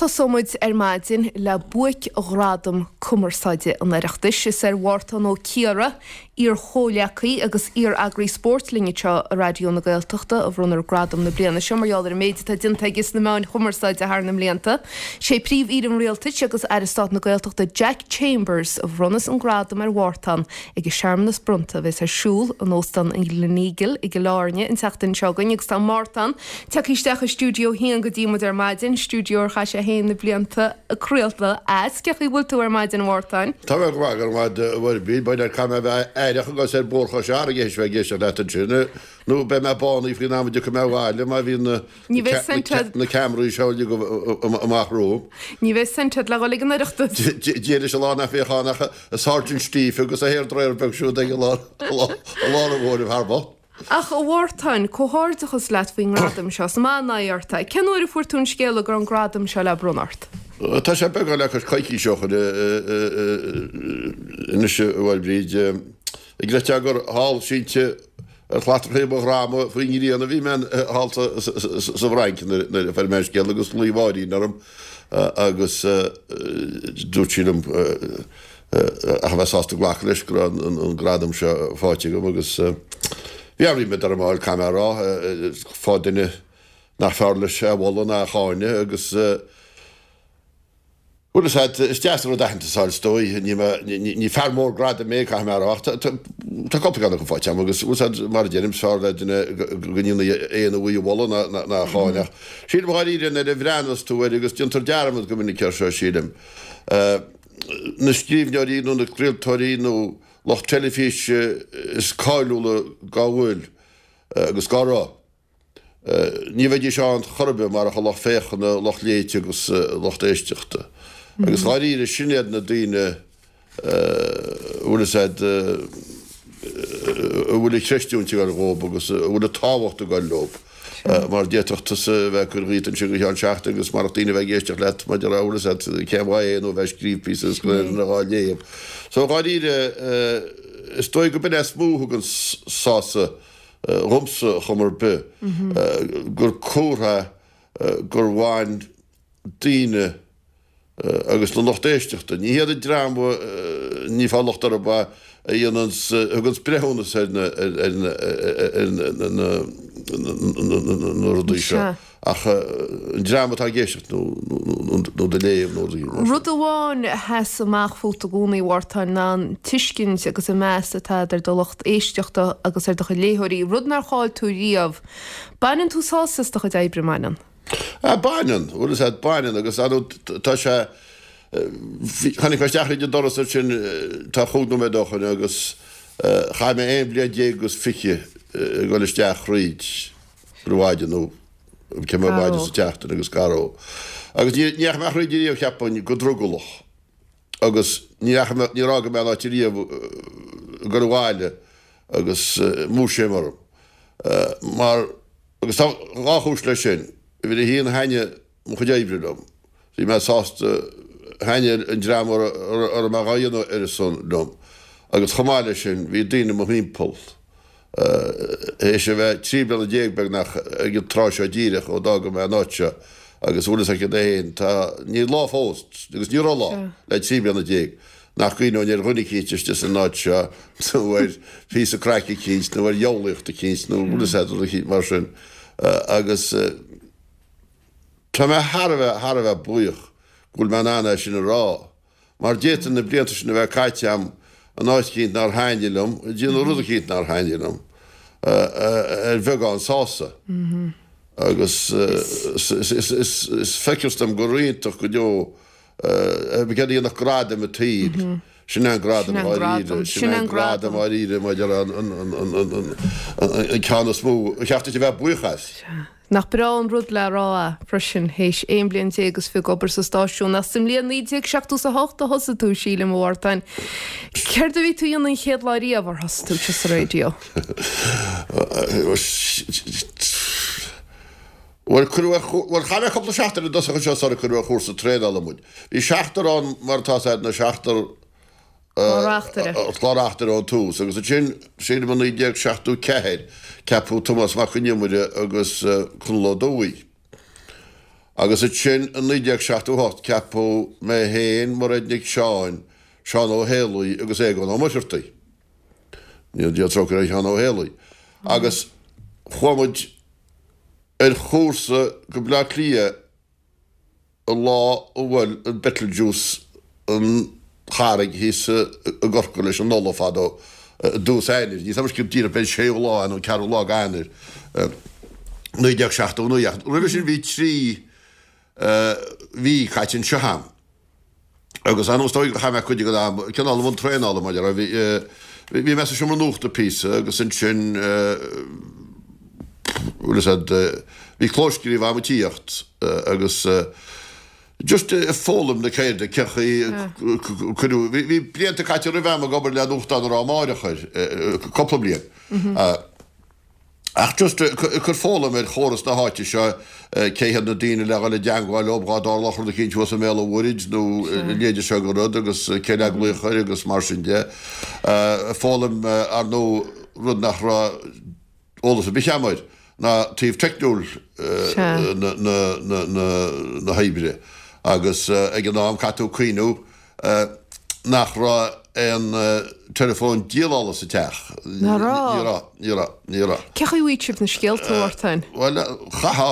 tosóidh muid ar maidin le buaic-ghradam cumarsáide an Oireachtais. Is ar Mhártán Ó Ciardha, iar-chomhghleacaí agus iar-eagraí spóirt linn anseo i Raidió na Gaeltachta, a bhronnfar gradam na bliana seo mar gheall ar an méid atá déanta aige sna meáin chumarsáide thar na mblianta. Sé Príomh-Aoire an Rialtais agus Aire Stáit na Gaeltachta Jack Chambers a bhronnfas an gradam ar Mhártán ag an searmanas bronnta a bheas ar siúl in Óstán an Gleneagle i gCill Airne an tseachtain seo chugainn agus tá Mártán tagtha isteach i Stiúideo 1 go dtí muid ar maidin, stiúideo ar chaith sé féin na blianta ag craoladh as. Cén chaoi a bhfuil tú ar maidin, a Mhártáin? Tá mé go maith, go raibh maith agat, a Mhairbhríd. B'fhéidir caithfidh mé a bheith aireach agus ar Bhóthar Chois Fharraige théis bheith ag éisteacht leat ansin, nó beidh mé bánaithe faoin am a dtiocfaidh mé abhaile má bhíonn na Ní bheidh cent agat. na ceamaraí seo uilig amach romham. Ní bheidh cent agat le dhul ag an Oireachtas. Dia leis an lá nach mbeadh ann ach an Sergeant Steve agus a hairdryer beag siúd ag i lár an bhóthair thar both. Ach, a Mhártáin, comhghairdeachas leat faoin ngradam seo. Is maith an aghaidh ort é. Cén uair a fuair tú an scéala go raibh an gradam seo le bronnadh ort? Tá sé beagán le cois coicíse ó shin anois, a Mhairbhríd. An gcreidfeá gur thall sínte ar shlatrachaí mo dhroma faoin ngrian a bhí mé thall sa bhFrainc nuair a fuair mé an scéala agus ghlaoigh Máirín orm agus dúirt sí liom ach a bheith sásta glacadh leis go raibh an gradam seo faighte agam agus bhí an-ríméad orm a fháil, caithfidh mé a rá, fá duine nach fearr leis é a mholadh ná a cháineadh agus bhuel is ea, is deas an rud aitheantas a fháil is dóigh, ní mé, ní fear mór gradaim mé, caithfidh mé a rá, ach tá cúpla ceann acu faighte agam agus bhuel is ea, mar a deirim, is fearr le duine go ndéanfaí aon uaidh a mholadh ná a cháineadh. Sílim dháiríre nuair a bhreathnas tú air agus déantar dearmad go minic air seo, sílim. na scríbhneoirí nó na craoltóirí nó lucht teilifíse is cáiliúla dá bhfuil agus dá raibh. Ní bheidís ann chor ar bith marach an lucht féachana, lucht léite agus lucht éisteachta. Agus dháiríre, sin iad na daoine a bhfuil fhios a'd, a bhfuil an chreidiúint ag dul dhóibh agus a bhfuil an tábhacht ag dul leo. Mar d'fhéadfadh tusa a bheith ag cur dhíot ansin go ceann seachtaine agus marach daoine a bheith ag éisteacht leat mar a déarfá bhfuil fhios a'd cén mhaith é nó a bheith ag scríobh píosa agus gan aon duine dhá léamh. So dháiríre is dóigh go b'in é is mó a thugann sásamh dhomsa chuma ar bith gur comhartha gur bhain daoine agus na lucht éisteachta. Ní hiad an dream, ní fáil locht orthu, a dhéananns, a thuganns breithiúnas ar na, ar na, ar na, na rudaí seo ach an dream atá ag éisteacht nó, nó do léamh nó rudaí mar sin. Rud amháin a sheas amach fút i gcónaí, a Mhártáin, ná an tuiscint agus an meas atá agat ar do lucht éisteachta agus ar do chuid léitheoirí, rud nár chaill tú riamh. Baineann tú sásamh as do chuid oibre, an mbaineann? Ah, baineann, bhfuil fhios a'd, baineann agus ar ndóigh tá sé, tháinig mé isteach thríd an doras ansin tá chúig nóiméad ó shoin agus chaith mé aon bhliain déag agus fiche ag dul isteach thríd ar maidin nó cibé maidin sa tseachtain agus cá raibh. Agus ní dheachaigh mé thríd ariamh cheapfainn go drogallach agus ní dheachaigh mé, níor fhága mé an áit ariamh ag dul abhaile agus múisiam orm mar, Agus tá dhá chúis leis sin. Uimhir a haon, thaitnigh mo chuid oibre liom. Bhí mé sásta, thaitnigh an dream a raibh mé dhá dhéanamh ar a son liom. Agus chomh maith leis sin, bhí daoine i mo thimpeall, théis a bheith 13 bliana beagnach ag an tráth seo díreach ó d'fhága mé an áit seo, agus bhfuil fhios agat féin, tá, níl lá fós, agus ní raibh lá, le 13 bliana nach gcuimhneoinn ar dhuine eicínt istigh san áit seo nó ar phíosa craic eicínt nó ar dhiabhlaíocht eicínt nó bhfuil fhios a'd rud eicínt mar sin agus tá mé thar a bheith, thar a bheith buíoch go bhfuil mé in ann é sin a rá mar d'fhéadfainn na blianta sin a bheith caite a'm in áit eicínt nár thaitnigh liom, ag déanamh rud eicínt nár thaitnigh liom ar bheagán sásamh agus is feictear dom gur iontach go deo Céard a dhéanfadh gradam an tsaoil? Sin é an gradam dháiríre. Sin é an gradam dháiríre maidir an ceann is mó a cheart duit a bheith buíoch as. Nach breá an rud le rá é freisin, théis 11 bliain is fiche ag obair sa stáisiún. Ach sa mbliain 1978 a thosaigh tú, sílim, a Mhártáin. Céard a bhí tú a dhéanamh an chéad lá riamh ar thosaigh tú sa raidió? Bhuel, cuireadh ar, bhuel, chaith mé cúpla seachtain i dtosach anseo sular cuireadh ar chúrsa traenála muid. Bhí seachtar ann, mar atá fhios a'd, na seachtar, Clár-reachtaire. clár-reachtaire ón tús agus ansin, sílim i 1974, ceapadh Tomás Mac Con Iomaire agus Conall Ó Dubhthaigh. Agus ansin i 1978 ceapadh mé féin, Mairéad Nic Seáin, Seán Ó Héalaí agus Aogán Ó Muircheartaigh. Go ndéana Dia trócaire ar Sheán Ó Héalaí. Agus chuaigh muid ar chúrsa go Bleá Cliath an lá a bhuail an Betelgeuse an charraig thíos i gCorcaigh leis an ola fadó i dtús Eanáir. Níl 's agam go díreach b'é an séú lá nó an ceathrú lá d'Eanáir 1979 ach roimhe sin bhí 3 mhí caite anseo a'm. Agus ar ndóigh is dóigh gur chaith mé cuid den am cineál i mbun traenála mar a bhí bhí mé sa seomra nuachta píosa agus ansin bhfuil fhios a'd bhí clóscríobh a'm ag tíocht agus just ag foghlaim na ceirde cén chaoi cuireadh bhí blianta caite roimhe a'm ag obair le nuachtán a raibh Amárach air cúpla bliain. Ach just ag cur foghlaim ar chóras na háite seo, cé hiad na daoine le dhul i dteangmháil leob dhá dtarlódh rud eicínt thuas i mBéal an Mhuirthid nó a leithéide seo de rud agus cé le glaoch air agus mar sin de. Foghlaim ar ndóigh rud nach raibh eolas ar bith a'm air ná taobh teicniúil na hoibre agus ag an am caithfidh tú cuimhniú nach raibh aon teileafón dialála sa teach. Nach raibh? Ní raibh, ní raibh, ní raibh. Cén chaoi a bhfaigheadh sibh na scéalta, a Mhártain? Bhuel, chaithfeá,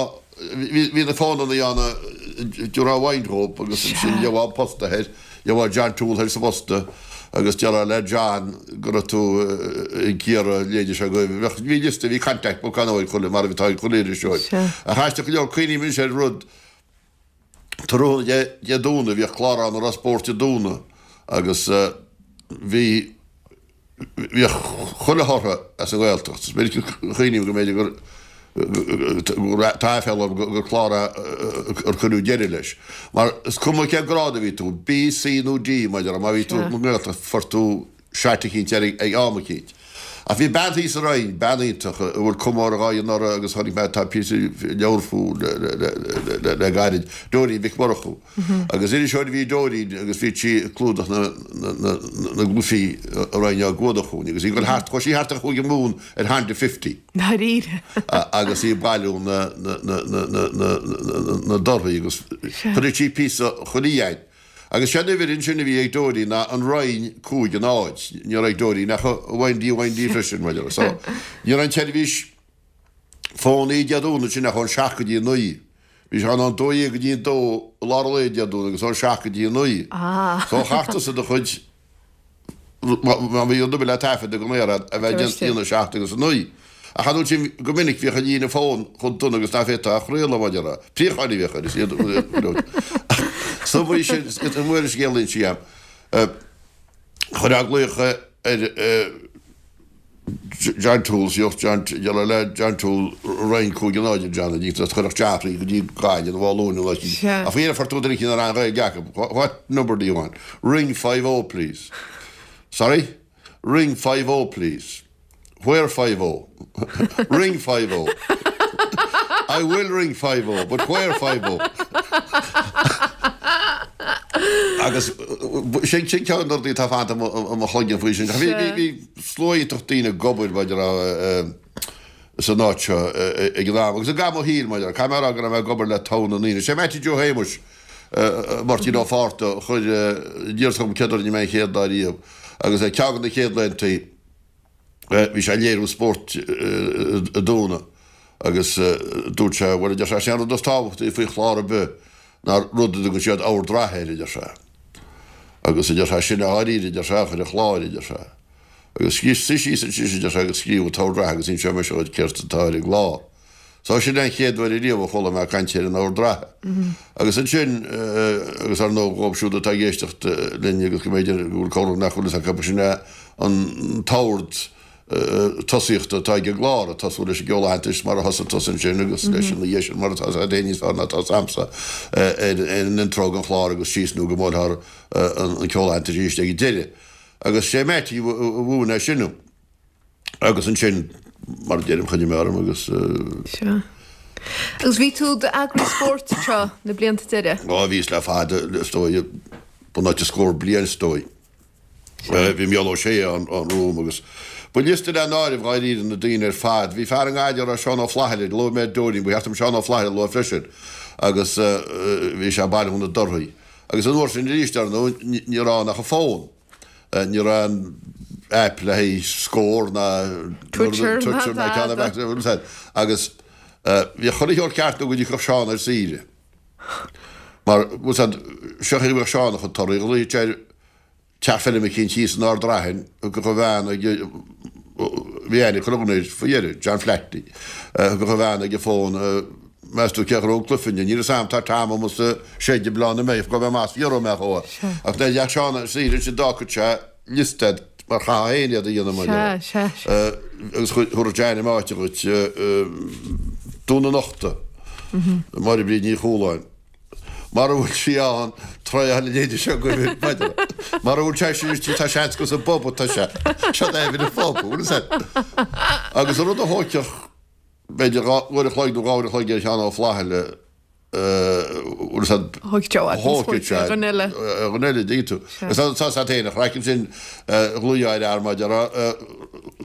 bhí na fónannaí ann a dtabharfá uainn dhób agus ansin gheofá an posta thoir, gheofá John Toole thoir sa bposta agus déarfá le John go raibh tú ag iarraidh a leithéide seo agaibh. Bheadh, bhí liosta, bhí contact book ann ag chuile, mar atá ag chuile iriseoir. Ach aisteach go leor, cuimhním anois ar rud, Tráthnóna Dé Domhnaigh bhíodh clár ann a raibh spórt Dé Domhnaigh agus bhí bhíodh chuile thortha as an nGaeltacht. Is minic a chuimhním go mb'fhéidir gur gur tá aiféala orm gur clár é ar cuireadh deireadh leis. Mar is cuma cén grád a bhí tú, B, C nó D mar a déarfá, má bhí tú sa nGaeltacht fuair tú shot eicínt air ag am eicínt. Ach bhí bean thíos sa Rinn, bean iontach, a bhfuil comóradh dhá dhéanamh uirthi agus chonaic mé tá píosa leabhar fúithi le gairid, Dóirín Mhic Murchú. Agus iriseoir a bhí i Dóirín agus bhí sí ag clúdach na gcluichí a Rinn á gcuadach chugainn agus í ag dul thart, chuaigh sí thart ar Chúige Mumhan ar Honda Fifty. Ndáiríre. Agus í ag bailiú na dtorthaí agus chuireadh sí píosa chuile dheain. Agus sé an uimhir ansin a bhí ag Dóirín ná an Rinn 5 0. Ní raibh ag Dóirín ach a 1D 1D freisin, mar a déarfá. So, ní raibh an tseirbhís fónaí Dé Domhnaigh sin ach ón 7 go dtí 9. Bhí sé ann ón 12 go dtí 2 i lár an lae Dé Domhnaigh agus ón 7 go dtí 9. So chaithfeá tusa do chuid Má bhí rud ar bith le taifead ag an aer a bheith déanta idir 7 agus 9. Ach an uair sin go minic bhíodh an líne fón chomh dona agus ná féadfá a chraoladh mar a déarfá. Préacháin a bhíodh air is iad Sa mhaí sin is an uair is scéal inse agam. Chuirfeá glaoch ar John Toole, Sioch John, déarfá le John Toole, Rinn 5 0 a John, a dtí chuirfeadh Geoffrey go dtí Gaillimh nó Áth Luain nó Sea. Ach faoi dheireadh fuair tú duine eicínt a raibh an Ghaeilge acu. What number do you want? Ring 5 0 please. Sorry? Ring 5 0 please. Where 5 0? Ring 5 0. I will ring 5 0, but where 5 0? Agus sin sin ceann de na rudaí atá fanta i mo chloigeann faoi sin. Bhí Slua iontach daoine ag obair mar a déarfá san áit seo ag an am agus i gcaitheamh mo shaoil mar a déarfá. Caithfidh mé a rá go raibh mé ag obair le togha na ndaoine. Sé Mattie Joe Shéamuis, Máirtín Ó Fátharta a chuir aníos chugam céad uair a rinne mé an chéad lá riamh agus ar ceann de na chéad laethantaí bhí sé ag léiriú spóirt i dTúna agus dúirt sé bhuel a deir sé sé an rud is tábhachtaí faoi chlár ar bith ná rud a dtugann siad ord reatha air a deir sé. Agus a deir sé, sin é dháiríre, a deir sé, a chuir an chláir, a deir sé. Agus suigh síos ansin, a deir sé, agus scríobh an t-ord reatha agus inseoidh mise dhuit céard atá ar an gclár. So sin é an chéad uair ariamh a chuala mé caint ar an ord reatha. Agus ansin, agus ar ndóigh dhóibh siúd atá ag éisteacht linn agus go mb'fhéidir go bhfuil corradh nach bhfuil fhios acu, sin é an t-ord tosaíochta atá ag an gclár, ag tosú leis an gceol aitheantais mar a thosaigh tusa ansin agus leis an oíche sin mar atá agat féin níos fearr ná atá agamsa ar an intro den chlár agus síos nó go mbuailfear an ceol aitheantais arís ag an deireadh. Agus sé Mattie a mhúin é sin dom. Agus ansin, mar a deirim, choinnigh mé orm agus. Sea. Agus bhí tú i d'eagraí spóirt anseo na blianta deiridh? Ó, bhíos le fada, is dóigh, bunáite scór bliain is dóigh. Bhí Mícheál Ó Sé ann romham agus. Ba liosta le n-áireamh dháiríre na daoine ar fad. Bhí fear i nGaillimh a raibh Seán Ó Flathaile, luaigh mé Dóirín, ba cheart dom Seán Ó Flathaile a lua freisin agus bhí sé ag bailiú na dtorthaí. Agus an uair sin arís, ar ndóigh, ní raibh ann ach an fón. Ní raibh aon aip le haghaidh Scór ná Twitter ná ceann ar bith. Agus bhíodh chuile shórt ceart nó go dtiocfadh Seán ar saoire. Mar, bhfuil 's a'd, seo chuige a bhíodh Seán a chuid torthaí, ghlaoigh sé ar teach feirme eicínt thíos in Ard Raithin, thiocfadh a bhean ag, bhí aithne ag chuile dhuine air faoi dheireadh, John Flaherty, thiocfadh a bhean ag an bhfón, meas tú cé a ghnóthóidh an cluiche inniu, níl 'fhios a'm, tá Tom amuigh sa seid ag Bleá na Mbeidh, gabh mé amach is fiafróidh mé dhó. Ach nuair a theacht Seán ar saoire ansin d'fhágfadh sé liosta a'd mar chaithfeá féin iad a dhéanamh mar Sea, sea, sea. Agus thabharfadh sé ainm áite dhuit, Dún na Nochta, Máire Bríd Ní Chualáin. Mara bhfuil sí ann, tráth na léide seo agaibh, b'fhéidir. Mara bhfuil sé sin istigh, tá seans gur sa bpub atá sé. Seo d'aimhir an phub, bhfuil fhios a'd. Agus an rud a thóigfeadh, b'fhéidir, uair a chloig nó 2 uair a chloig ar Sheán Ó Flathaile, bhfuil fhios a'd, Thóigfeadh sé i bhfad níos thóigfeadh sé ar dhuine eile. Ar dhuine eile, dtuigeann tú. Agus tá fhios a'd féin, an chraic ansin, ghlaoigh ar fhear mar a déarfá,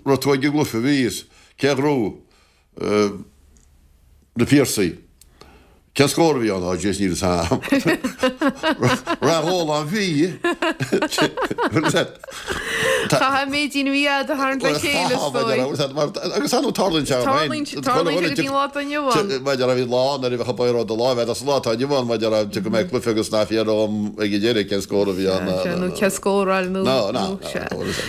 raibh tú ag an gcluiche, bhíos, cé a ghnóthaigh? Na Piarsaigh. Cén scór a bhí ann? Á, jeez, níl fhios a'm. Rath Góláin bhí. Chaithfeá an méid a bhí a'd a tharraingt le chéile, is dóigh. Agus ar ndóigh tarlaíonn sé féin. Tarlaíonn sé go dtí an lá atá inniu ann. Maidir a bhí lá nuair a bheadh an baol do láimh a'd as an lá atá inniu ann maidir a go mbeidh cluiche agus ná fiafródh ag an deireadh cén scór a bhí ann. Nó cén scóráil nó. Ná, ná.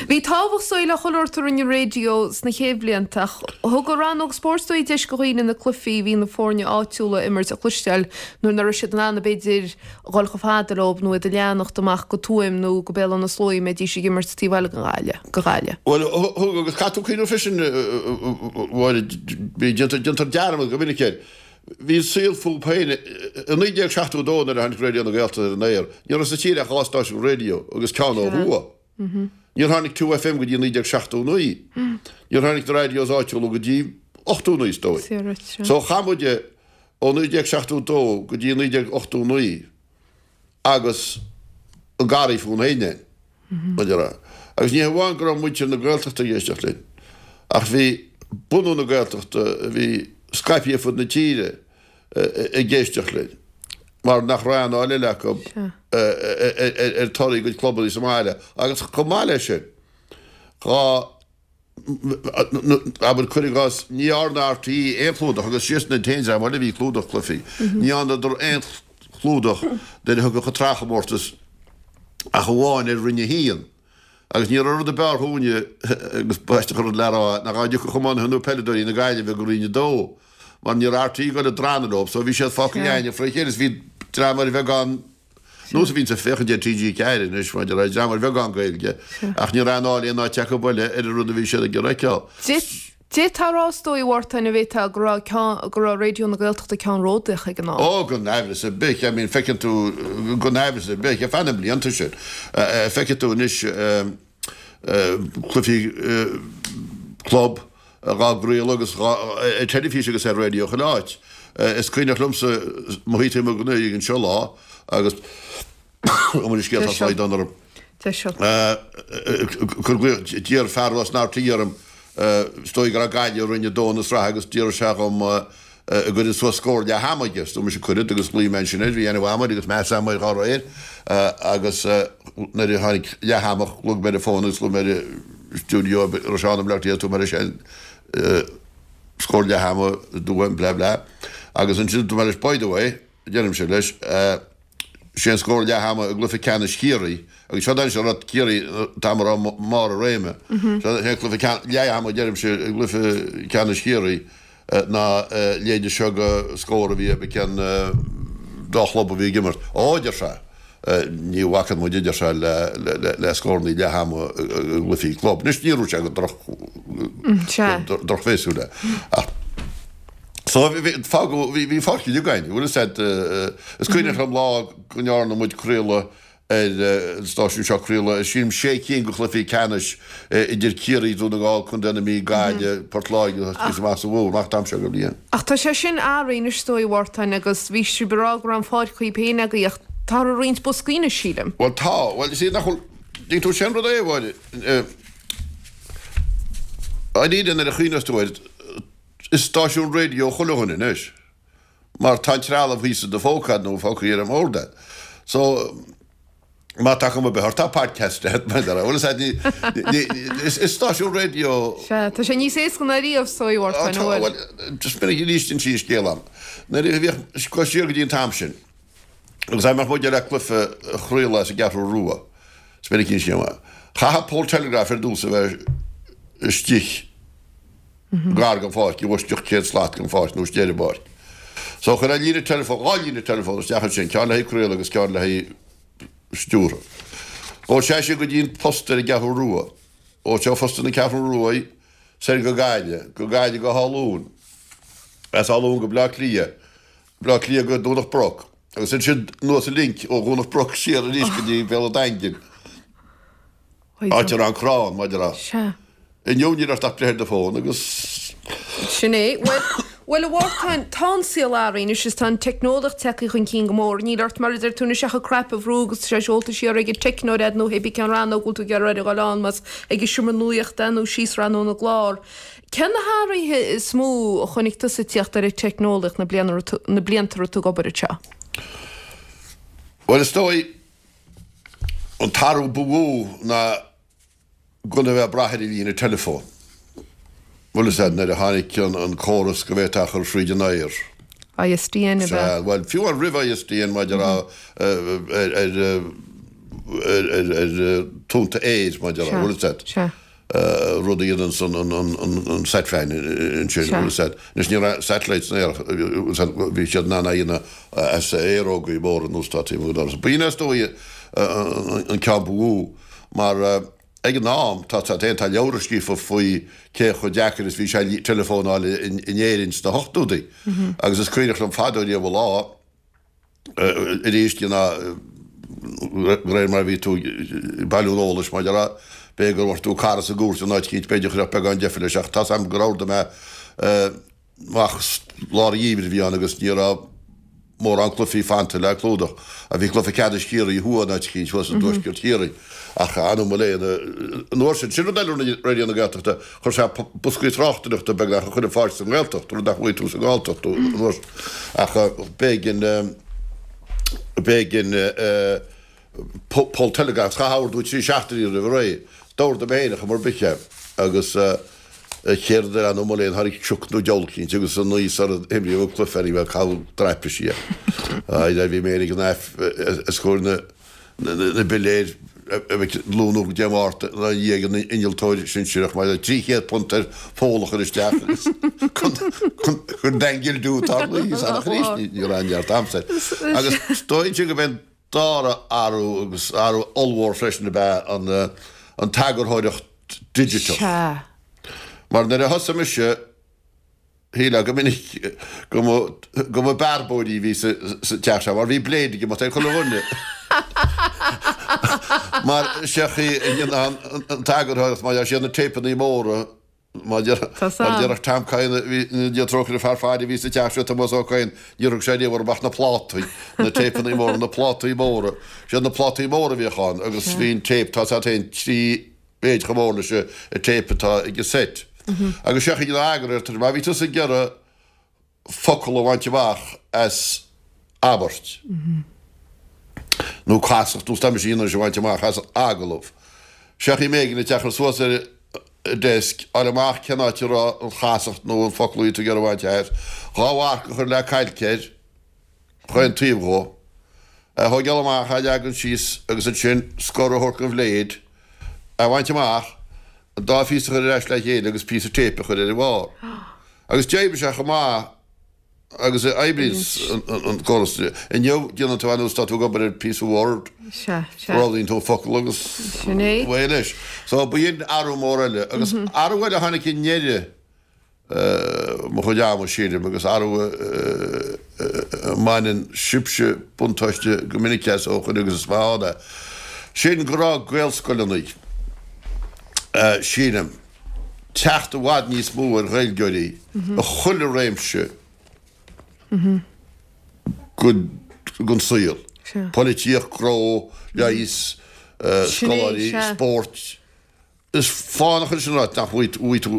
Bhí tábhacht is dóigh le chuile shórt a rinne an raidió sna chéad bhlianta ach Thug an rannóg spóirt is dóigh deis do dhaoine na cluichí a bhí na foirne áitiúla a imirt a chloisteáil nuair nach raibh siad in ann b'fhéidir a dhul chomh fada leo nó iad a leanacht amach go Tuaim nó go Béal Átha na Sluaighe a mbeidís ag imirt taobh eile den Ghaillimh, go Ghaillimh. Bhuel, thug agus caithfidh tú cuimhneamh freisin, a Mháire, bhí, déantar, déantar dearmad go minic air. Bhí an saol fúb féin. I 1972 nuair a tháinig Raidió na Gaeltachta ar an aer, ní raibh sa tír ach 2 stáisiún raidió agus ceann ó thuaidh. Níor tháinig 2FM go dtí 1979. Níor tháinig na radios áitiúla go dtí 89 is dóigh. So chaith muid ó 1972 go dtí 1989 agus an garraí fúinn féin againn. Agus ní hamháin go raibh muintir na Gaeltachta ag éisteacht linn, ach bhí bunadh na Gaeltachta a bhí scaipthe ar fud na tíre ag éisteacht linn mar nach raibh aon fháil eile acu ar torthaí a gcuid clubanna sa mbaile agus chomh maith leis sin, dhá, abair, cuir i gcás, ní dhearna RTÉ aon chlúdach agus siadsan an t-aon dream eile a bhí ag clúdach cluichí, ní dhearnadar aon chlúdach nuair a thiocfadh an tsraithchomórtas ach amháin ar Roinn 1. Agus ní raibh rud ab fhearr dhúinne, agus b'aisteach an rud le rá, ná dhá dtiocfadh iománaithe nó peileadóirí na Gaillimhe go Roinn 2, mar ní raibh RTÉ ag dul ag drannadh leo, so bhí siad fágtha againne fré chéile, is bhí dream ar bheagán, nós a bhíonns ag féachaint ar TG4 anois, mar a déarfá, dream ar bheagán Gaeilge, ach ní raibh aon fháil aon áit acu eile ar an rud a bhí siad ag iarraidh a fheiceáil. D'fhéadfá a rá is dóigh, a Mhártain, an bhféadfá, go raibh ceann, go raibh Raidió na Gaeltachta ceannródaíoch ag an am. Ó, gan aimhreas ar bith, I mean, feiceann tú, gan aimhreas ar bith, ar feadh na mblianta sin, feicfidh tú anois cluichí club dhá gcraoladh agus dhá, ar teilifís agus ar raidió chuile áit. Is cuimhneach liomsa mo shuí taobh amuigh den oifig anseo lá agus an scéal tá slaghdán orm. D'iarr fear as an RTÉ orm, is dóigh go raibh Gaillimh i Roinn 2 na sraithe agus d'iarr sé dhom an gcuirfinn suas scór leath ama aige. Is dúirt mise cuirfead agus ghlaoigh mé ansin air, bhí aithne mhaith agam air agus meas agam air dá réir agus nuair a tháinig leath ama ghlaoigh mé ar an bhfón agus ghlaoigh mé ar an stiúideo a raibh Seán i mBleá Cliath, dúirt mé leis scór leath ama, dúirt blah blah agus ansin dúirt mé leis by the way, deirimse leis, Sé an scór leath ama i gcluiche ceannais Chiarraí, agus seo d'ainnis a raibh Ciarraí an t-am a raibh mbarr a réime, seo é cluiche leath ama deirimse i gcluiche ceannais Chiarraí ná leide seo go scór a bhí ag an dá chlub a bhí ag imirt. Ó, a deir sé, ní bhacann muid, a deir sé, le scórannaí leath ama i gcluichí club. Anois ní raibh sé go drochbhéasúil é ach. So, bhí, fágadh, bhí, bhí pháirc uilig againn, bhfuil fhios a'd, is cuimhneach liom lá go ndearna muid craoladh ar an stáisiún seo, craoladh ar, sílim, sé cinn de chluichí ceannais idir Ciarraí, Dún na nGall, Contae na Mí, Gaillimh, Port Láirge agus thíos amach sa Mhumhain, amach an t-am seo den bhliain. Ach tá sé sin athraithe anois is dóigh, a Mhártain, agus bhí sibh ag rá go raibh an pháirc dhaoibh féin agaibh ach táthar ag roinnt boscaí anois, sílim. Bhuel tá, bhuel, is iad nach bhfuil, dtuigeann tú, sin rud é, a Mháire, eh. Dáiríre nuair a chuimhneos tú air, is stáisiún raidió chuile dhuine anois mar tá an trealamh thíos i do phóca agat nó fágtha ar an mbord agat. So, má tá cuma ar bith ort, tá podcast agat, mar a bhfuil fhios agat, ní, ní, is stáisiún raidió. Sea, tá sé níos éasca ná riamh, is dóigh, a Mhártáin, an bhfuil? Bhuel, just minic arís insí an scéal a'm. Nuair a bhíodh, go siar go dtí an t-am sin, agus dá mbeadh muid le cluiche a chraoladh as an gCeathrú Rua, is minic an scéal, chaithfeadh poll telegraph ar dtús a bheith istigh gar don pháirc, i bhfoisceacht 100 slat den pháirc nó istigh ar an bpáirc. So chuirfeá líne teileafóin, 2 líne teileafóin isteach ansin, ceann le haghaidh craoladh agus ceann le haghaidh stiúrtha. Ghabhadh sé sin go dtí an post ar an gCeathrú Rua. Ó seo phost na Ceathrún Rua soir go Gaillimh, go Gaillimh go hÁth Luain, as Áth Luain go Bleá Cliath, Bleá Cliath go Domhnach Broc, agus ansin anuas an link ó Dhomhnach Broc siar arís go dtí Béal an Daingin, áit a raibh an crann, mar a déarfá. Sea. Inniu níl ort ach breith ar do fón agus. Sin é. Bhuel, bhuel a Mhártáin, tá an saol athraithe anois is tá an teicneolaíocht tagtha chun cinn go mór. Níl ort, mar a deir tú anois, ach an cnaipe a bhrú agus tá sé seolta siar ag an teicneoir a'd nó hé bí cén rannóg a bhfuil tú ag iarraidh a dhul ann, más ag an seomra nuachta é nó síos rannóg na gclár. Cé na hathruithe is mó a chonaic tusa ag tíocht ar an teicneolaíocht na na blianta a raibh tú ag obair anseo? Bhuel, is dóigh, an t-athrú ba mhó ná gan a bheith ag brath ar an líne teileafóin. Bhfuil fhios a'd, nuair a tháinig an córas go bhféadfá a chur thríd an aer. ISDN ab ea? Sea, bhuel, fiú amháin roimh ISDN mar a déarfá ar ar tonnta aeir mar a déarfá, bhfuil fhios a'd. Sea. rud a dhéanann an Satfan ansin, bhfuil fhios a'd. Anois ní raibh satellites san aer, bhí siad in ann a dhéanamh as aerógaí móra anuas atá taobh amuigh den doras. B'in is dóigh an ceann ba mhó mar ag an am, tá tá tá leabhra scríofa faoi cé chomh deacair is bhí sé teileafón a fháil in Éirinn sna hochtóidí agus is cuimhneach liom fadó riamh an lá, arís de réir mar a bhí tú ag bailiú an eolais mar a déarfá, b'fhéidir go bhfuair tú cara sa gcúirt in áit eicínt, b'fhéidir chuirfeadh beagán deifir leis ach tá's a'm gur ordaigh mé amach lár an gheimhridh a bhí ann agus ní raibh mórán cluichí fanta le clúdach. Bhí cluiche ceannais Chiarraí thuaidh in áit eicínt thuas i dtuaisceart Chiarraí ach anam mo léan an uair sin. Sin rud eile a rinne Raidió na Gaeltachta, chuir sé boscaí tráchtaireachta beagnach a chur ar fáil sa nGaeltacht, rud nach bhfaighidh tú sa nGalltacht an uair sin. Ach b'éigean, b'éigean poll telegraph, chaithfeá ordú 3 seachtainí roimh ré. D'ordaigh mé féin ar chuma ar bith é agus céard a anam mo léan, tháinig sioc nó diabhal eicínt agus an oíche sara himríodh an cluiche ní raibh caitheadh traipisí é. Bhí mé féin ag an os comhair na na bpiléir a bheith ag lúnú go Dé Máirt ina dhiaidh an innealtóir sinsearach mar £300 ar pholl a chur isteach agus chun daingil tarlaí san arís ní raibh neart aimsir. Agus is dóigh gurb é an dara athrú agus athrú ollmhór freisin ab ea an t-eagarthóireacht digiteach. Sea. Mar nuair a thosaigh mise Shílfeá go minic go mba go mba bearbóirí a bhí sa teach seo mar bhí blade ag imeacht ar chuile dhuine. Mar sé an chaoi a ndéanfá an t-eagarthóireacht mar is iad na téipeanna móra mar déarfadh Tom Kyne a bhí Dia trócaire fear faire a bhí sa teach seo Tomás Ó Cadhain níor thug sé riamh orthu ach na plátaí, na téipeanna móra, na plátaí móra. Siad na plátaí móra a bhíodh ann agus bhí an téip, tá a fhios agat féin, 3 mhéid chomh mór leis an téip atá ag an seit. Agus sé an chaoi a eagarthóir, má bhí tusa ag iarraidh focal a bhaint amach as abairt, nó casacht, nó tá mise in ann a bhaint amach as agallamh, sé an chaoi m'éigean duit é a chur suas ar an desk, fháil amach cén áit a raibh an chasacht nó an focal a bhí tú ag iarraidh a bhaint as, dhá mharc a chur le cailc air, chaon taobh dhó, é a thógáil amach, é a leagan síos agus ansin scor a thabhairt don bhléid, é a bhaint amach, an dá phíosa a chur ar ais le chéile agus píosa téipe a chur ar a bharr. Agus d'oibrigh sé chomh maith agus a oibríonns an córas inniu, déanann tú ar nós tá tú ag obair ar phíosa Word, roghnaíonn tú an focal agus away leis. So b'in athrú mór eile. Agus athrú eile a tháinig i ndeireadh mo chuid ama, sílim, agus athrú a mbaineann sibhse buntáiste go minic as ó shoin agus is maith ann é, sin go raibh Gaelscoileanna, sílim, teacht i bhfad níos mó ar Ghaeilgeoirí i chuile réimse den saol, polaitíocht, gnó, leigheas, scoláirí, spórt. Is fánach é sin a ráit nach bhfaighidh tú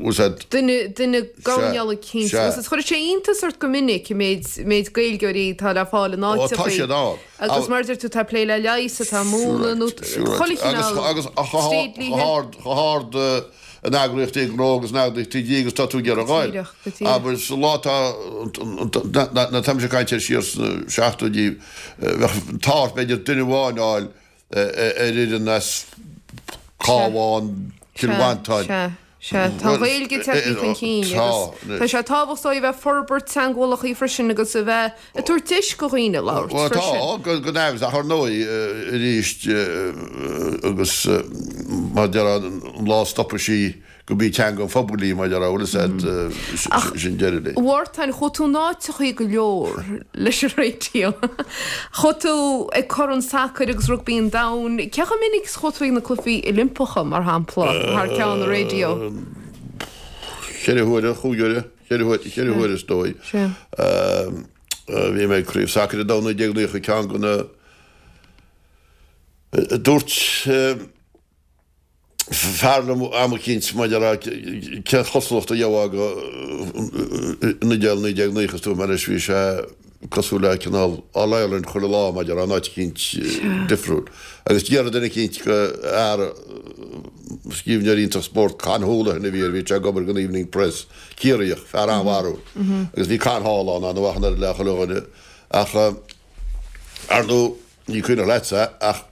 úsáid. Duine, duine gabhann cinnte. Sea. Agus chuirfeadh sé iontas ort go minic an méid, méid Gaeilgeoirí atá le fáil in Ó, tá áiteachaí. siad ann. Agus mar a deir tú, tá ag plé le leigheas, atá ag múineadh nó chuile chineál Agus chomh hard, chomh hard in eagraíochtaí gnó agus in eagraíochtaí dlí agus tá tú ag iarraidh a ghoil. Go díreach, go díreach. Abair, sa lá atá, na, táimse ag caint air siar sna seachtóidí, bheadh an t-ádh ort b'fhéidir duine amháin a fháil ar fhoireann as Cabhán, Cill Mhantáin. Sea, sea. Tá an Ghaeilge tagtha chun cinn agus tá sé tábhachtach a bheith ag forbairt teangmhálacha freisin agus a bheith ag tabhairt deis do dhaoine labhairt Bhuel tá, freisin. gan amhras, ach ar ndóigh arís agus mar a déarfá an lá a stopfaidh sí gurb í teanga an phobail í, mar a déarfá, bhfuil fhios a'd, sin deireadh léi. A Mhártain, chuaigh tú in áiteachaí go leor leis an raidió. Chuaigh tú ag Corn Sacair agus Rugbaí an Domhain. Cé chomh minic is a chuaigh tú ag na Cluichí Oilimpeacha, mar shampla, thar ceann an raidió? Cheithre huaire, chúig huaire, cheithre huaire is dóigh. Bhí mé ag Craobh Sacair an Domhain 1990, ceann de na, dúirt, fear liom am eicínt maidir le cén chosúlacht a gheofá go an Iodáil 1990 is dúirt mé leis bhí sé cosúil le cineál All Ireland chuile lá maidir in áit eicínt difriúil. Agus d'fhiafraigh duine eicínt go fhear scríbhneoir iontach spóirt Con Houlihan a bhí air bhí sé ag obair don Evening Press, Ciarraíoch, fear an-bharrúil. Agus bhí Con thall ann an-mhaith an oiread le chuile dhuine ach ar ndóigh Ní cuimhneach leatsa ach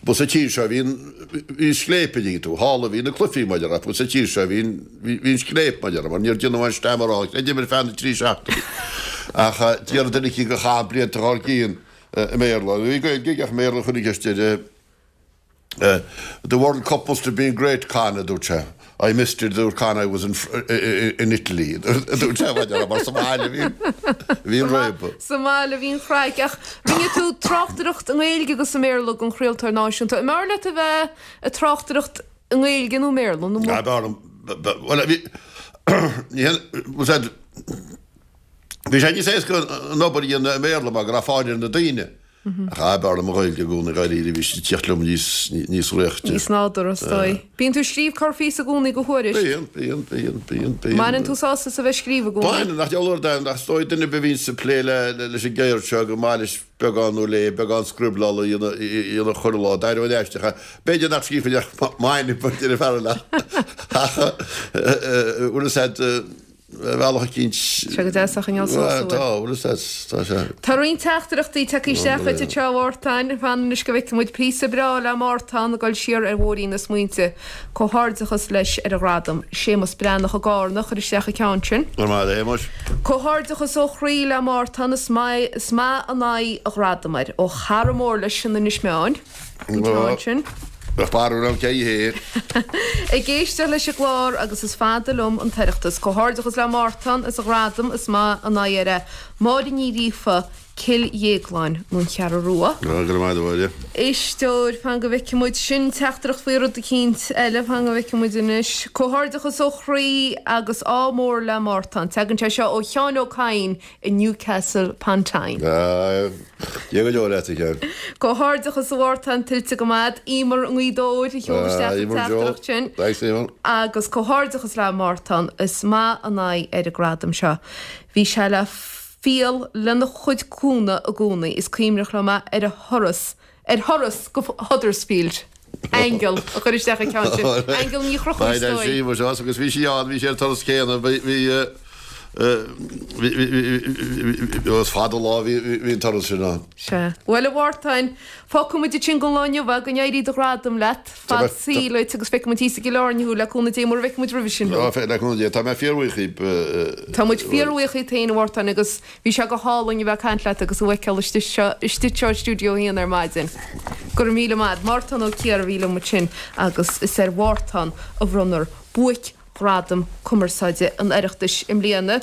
ba sa tír seo a bhí an, bhí an scléip a dtuigeann tú, thall a bhí na cluichí mar a déarfá, ba sa tír seo a bhí an, bhí an scléip mar a déarfá, mar níor déanadh aon stamaráil, chreidim ar feadh na dtrí seachtainí. Ach déarfadh duine eicínt go chaith blianta dhár gcionn i mBéarla, bhí Gaeilge aige ach i mBéarla a chuir an cheist air. The World Cup must have been great, Con, a dúirt sé. I missed it, a dúirt Con, I was in in Italy, a dúirt sé, mar sa mbaile a bhí bhí an réabadh. Sa mbaile a bhí an chraic. Ach rinne tú tráchtaireacht i nGaeilge agus i mBéarla don chraoltóir náisiúnta. An mb'fhearr leat a bheith ag tráchtaireacht i nGaeilge nó i mBéarla? Nó Ah, b'fhearr liom, bhuel, bhí, ní hé, bhfuil sé, bhí sé níos éasca an obair a dhéanamh i mBéarla mar go raibh fáil ar na daoine. Ach ah, b'fhearr liom an Ghaeilge i gcónaí, dháiríre, bhí sí ag tíocht liom níos, níos réichte. Níos nádúrtha, is dóigh. Bíonn tú ag scríobh corrphíosa i gcónaí do Thuairisc. Bíonn, bíonn, bíonn, bíonn, bíonn. Mbaineann tú sásamh as a bheith ag scríobh i gcónaí? Baineann, nach diabhal uair d'aon, ach is dóigh duine ar bith a bhíonns ag plé le, leis an gceird seo go maith leis beagán nó léi, beagán scrioblála a dhéanamh, a dhéanamh chuile lá, d'éireoinn aisteach, b'fhéidir nach scríobhfainn ach m'ainm, a deir an fear eile, ach, bhfuil fhios a'd, Bhealach eicínt. Sé go deas a choinneáil suas uair. Tá, bhfuil fhios a'd, tá sé. Tá roinnt teachtaireachtaí tagtha isteach duit anseo a Mhártain. Fan anois go bhfeicfidh muid píosa breá le Mártán ag dul siar ar bhóithrín na smaointe. Comhghairdeachas leis ar a ghradam. Séamus Breathnach i gCárna a chuir isteach an ceann sin. Go raibh maith agat, a Shéamuis. Comhghairdeachas ó chroí le Mártán, is maith, is maith an aghaidh a ghradam air. Ó chara mór leis in Inis Meáin. An ceann sin. Bheadh barúil ann cé hé. Ag éisteacht leis an gclár agus is fada liom an tOireachtas. Comhghairdeachas le Mártán as a ghradam, is maith an aghaidh air é. Máire Ní Ghríofa, Cill Dhéagláin nó an Cheathrú Rua. Go raibh maith agat, a Mháire. Éisteoir, fan go bhfeicfidh muid. Sin teachtaireacht faoi rud eicínt eile, fan go bhfeicfidh muid anois. Comhghairdeachas ó chroí agus ádh mór le Mártán. Tagann sé seo ó Sheán Ó Cadhain i Newcastle upon Tyne. Dia go deo leat, a Sheáin. Comhghairdeachas a Mhártain, tuillte go maith. Emer i nGaoth Dobhair a sheol isteach an teachtaireacht sin. Thanks, Emer. Agus comhghairdeachas le Mártán, is maith an aghaidh air an gradam seo. Bhí sé le fial lena chuid cúnamh i gcónaí. Is cuimhneach liom é ar a thuras ar thuras go Huddersfield. Aingeal a chuir isteach an ceann sin. Aingeal Ní Chonchúir is dóigh. Bhí sí agus bhí sí ann, bhí sí ar an turas céanna, bhí, bhí, bhí, bhí, is fada an lá a bhí an turas sin ann. Sea. Bhuel, a Mhártain, fágfaidh muid ansin don lá inniu é, go n-éirí do ghradam leat, fad saoil duit agus feicfidh muid thíos i gCill Airne thú le cúnamh Dé mura bhfeicfidh muid roimhe sin thú. Le cúnamh Dé. Tá mé fíorbhuíoch díbh. Tá muid fíorbhuíoch díot féin, a Mhártain, agus Bhí sé go hálainn a bheith ag caint leat agus thú a fheiceáil istigh seo, istigh anseo i Stiúideo 1 ar maidin. Go raibh míle maith. Mártán Ó Ciardha a bhí liom ansin agus is ar Mhártán a bhronnfar Buaic-Ghradam Cumarsáide an Oireachtais i mbliana.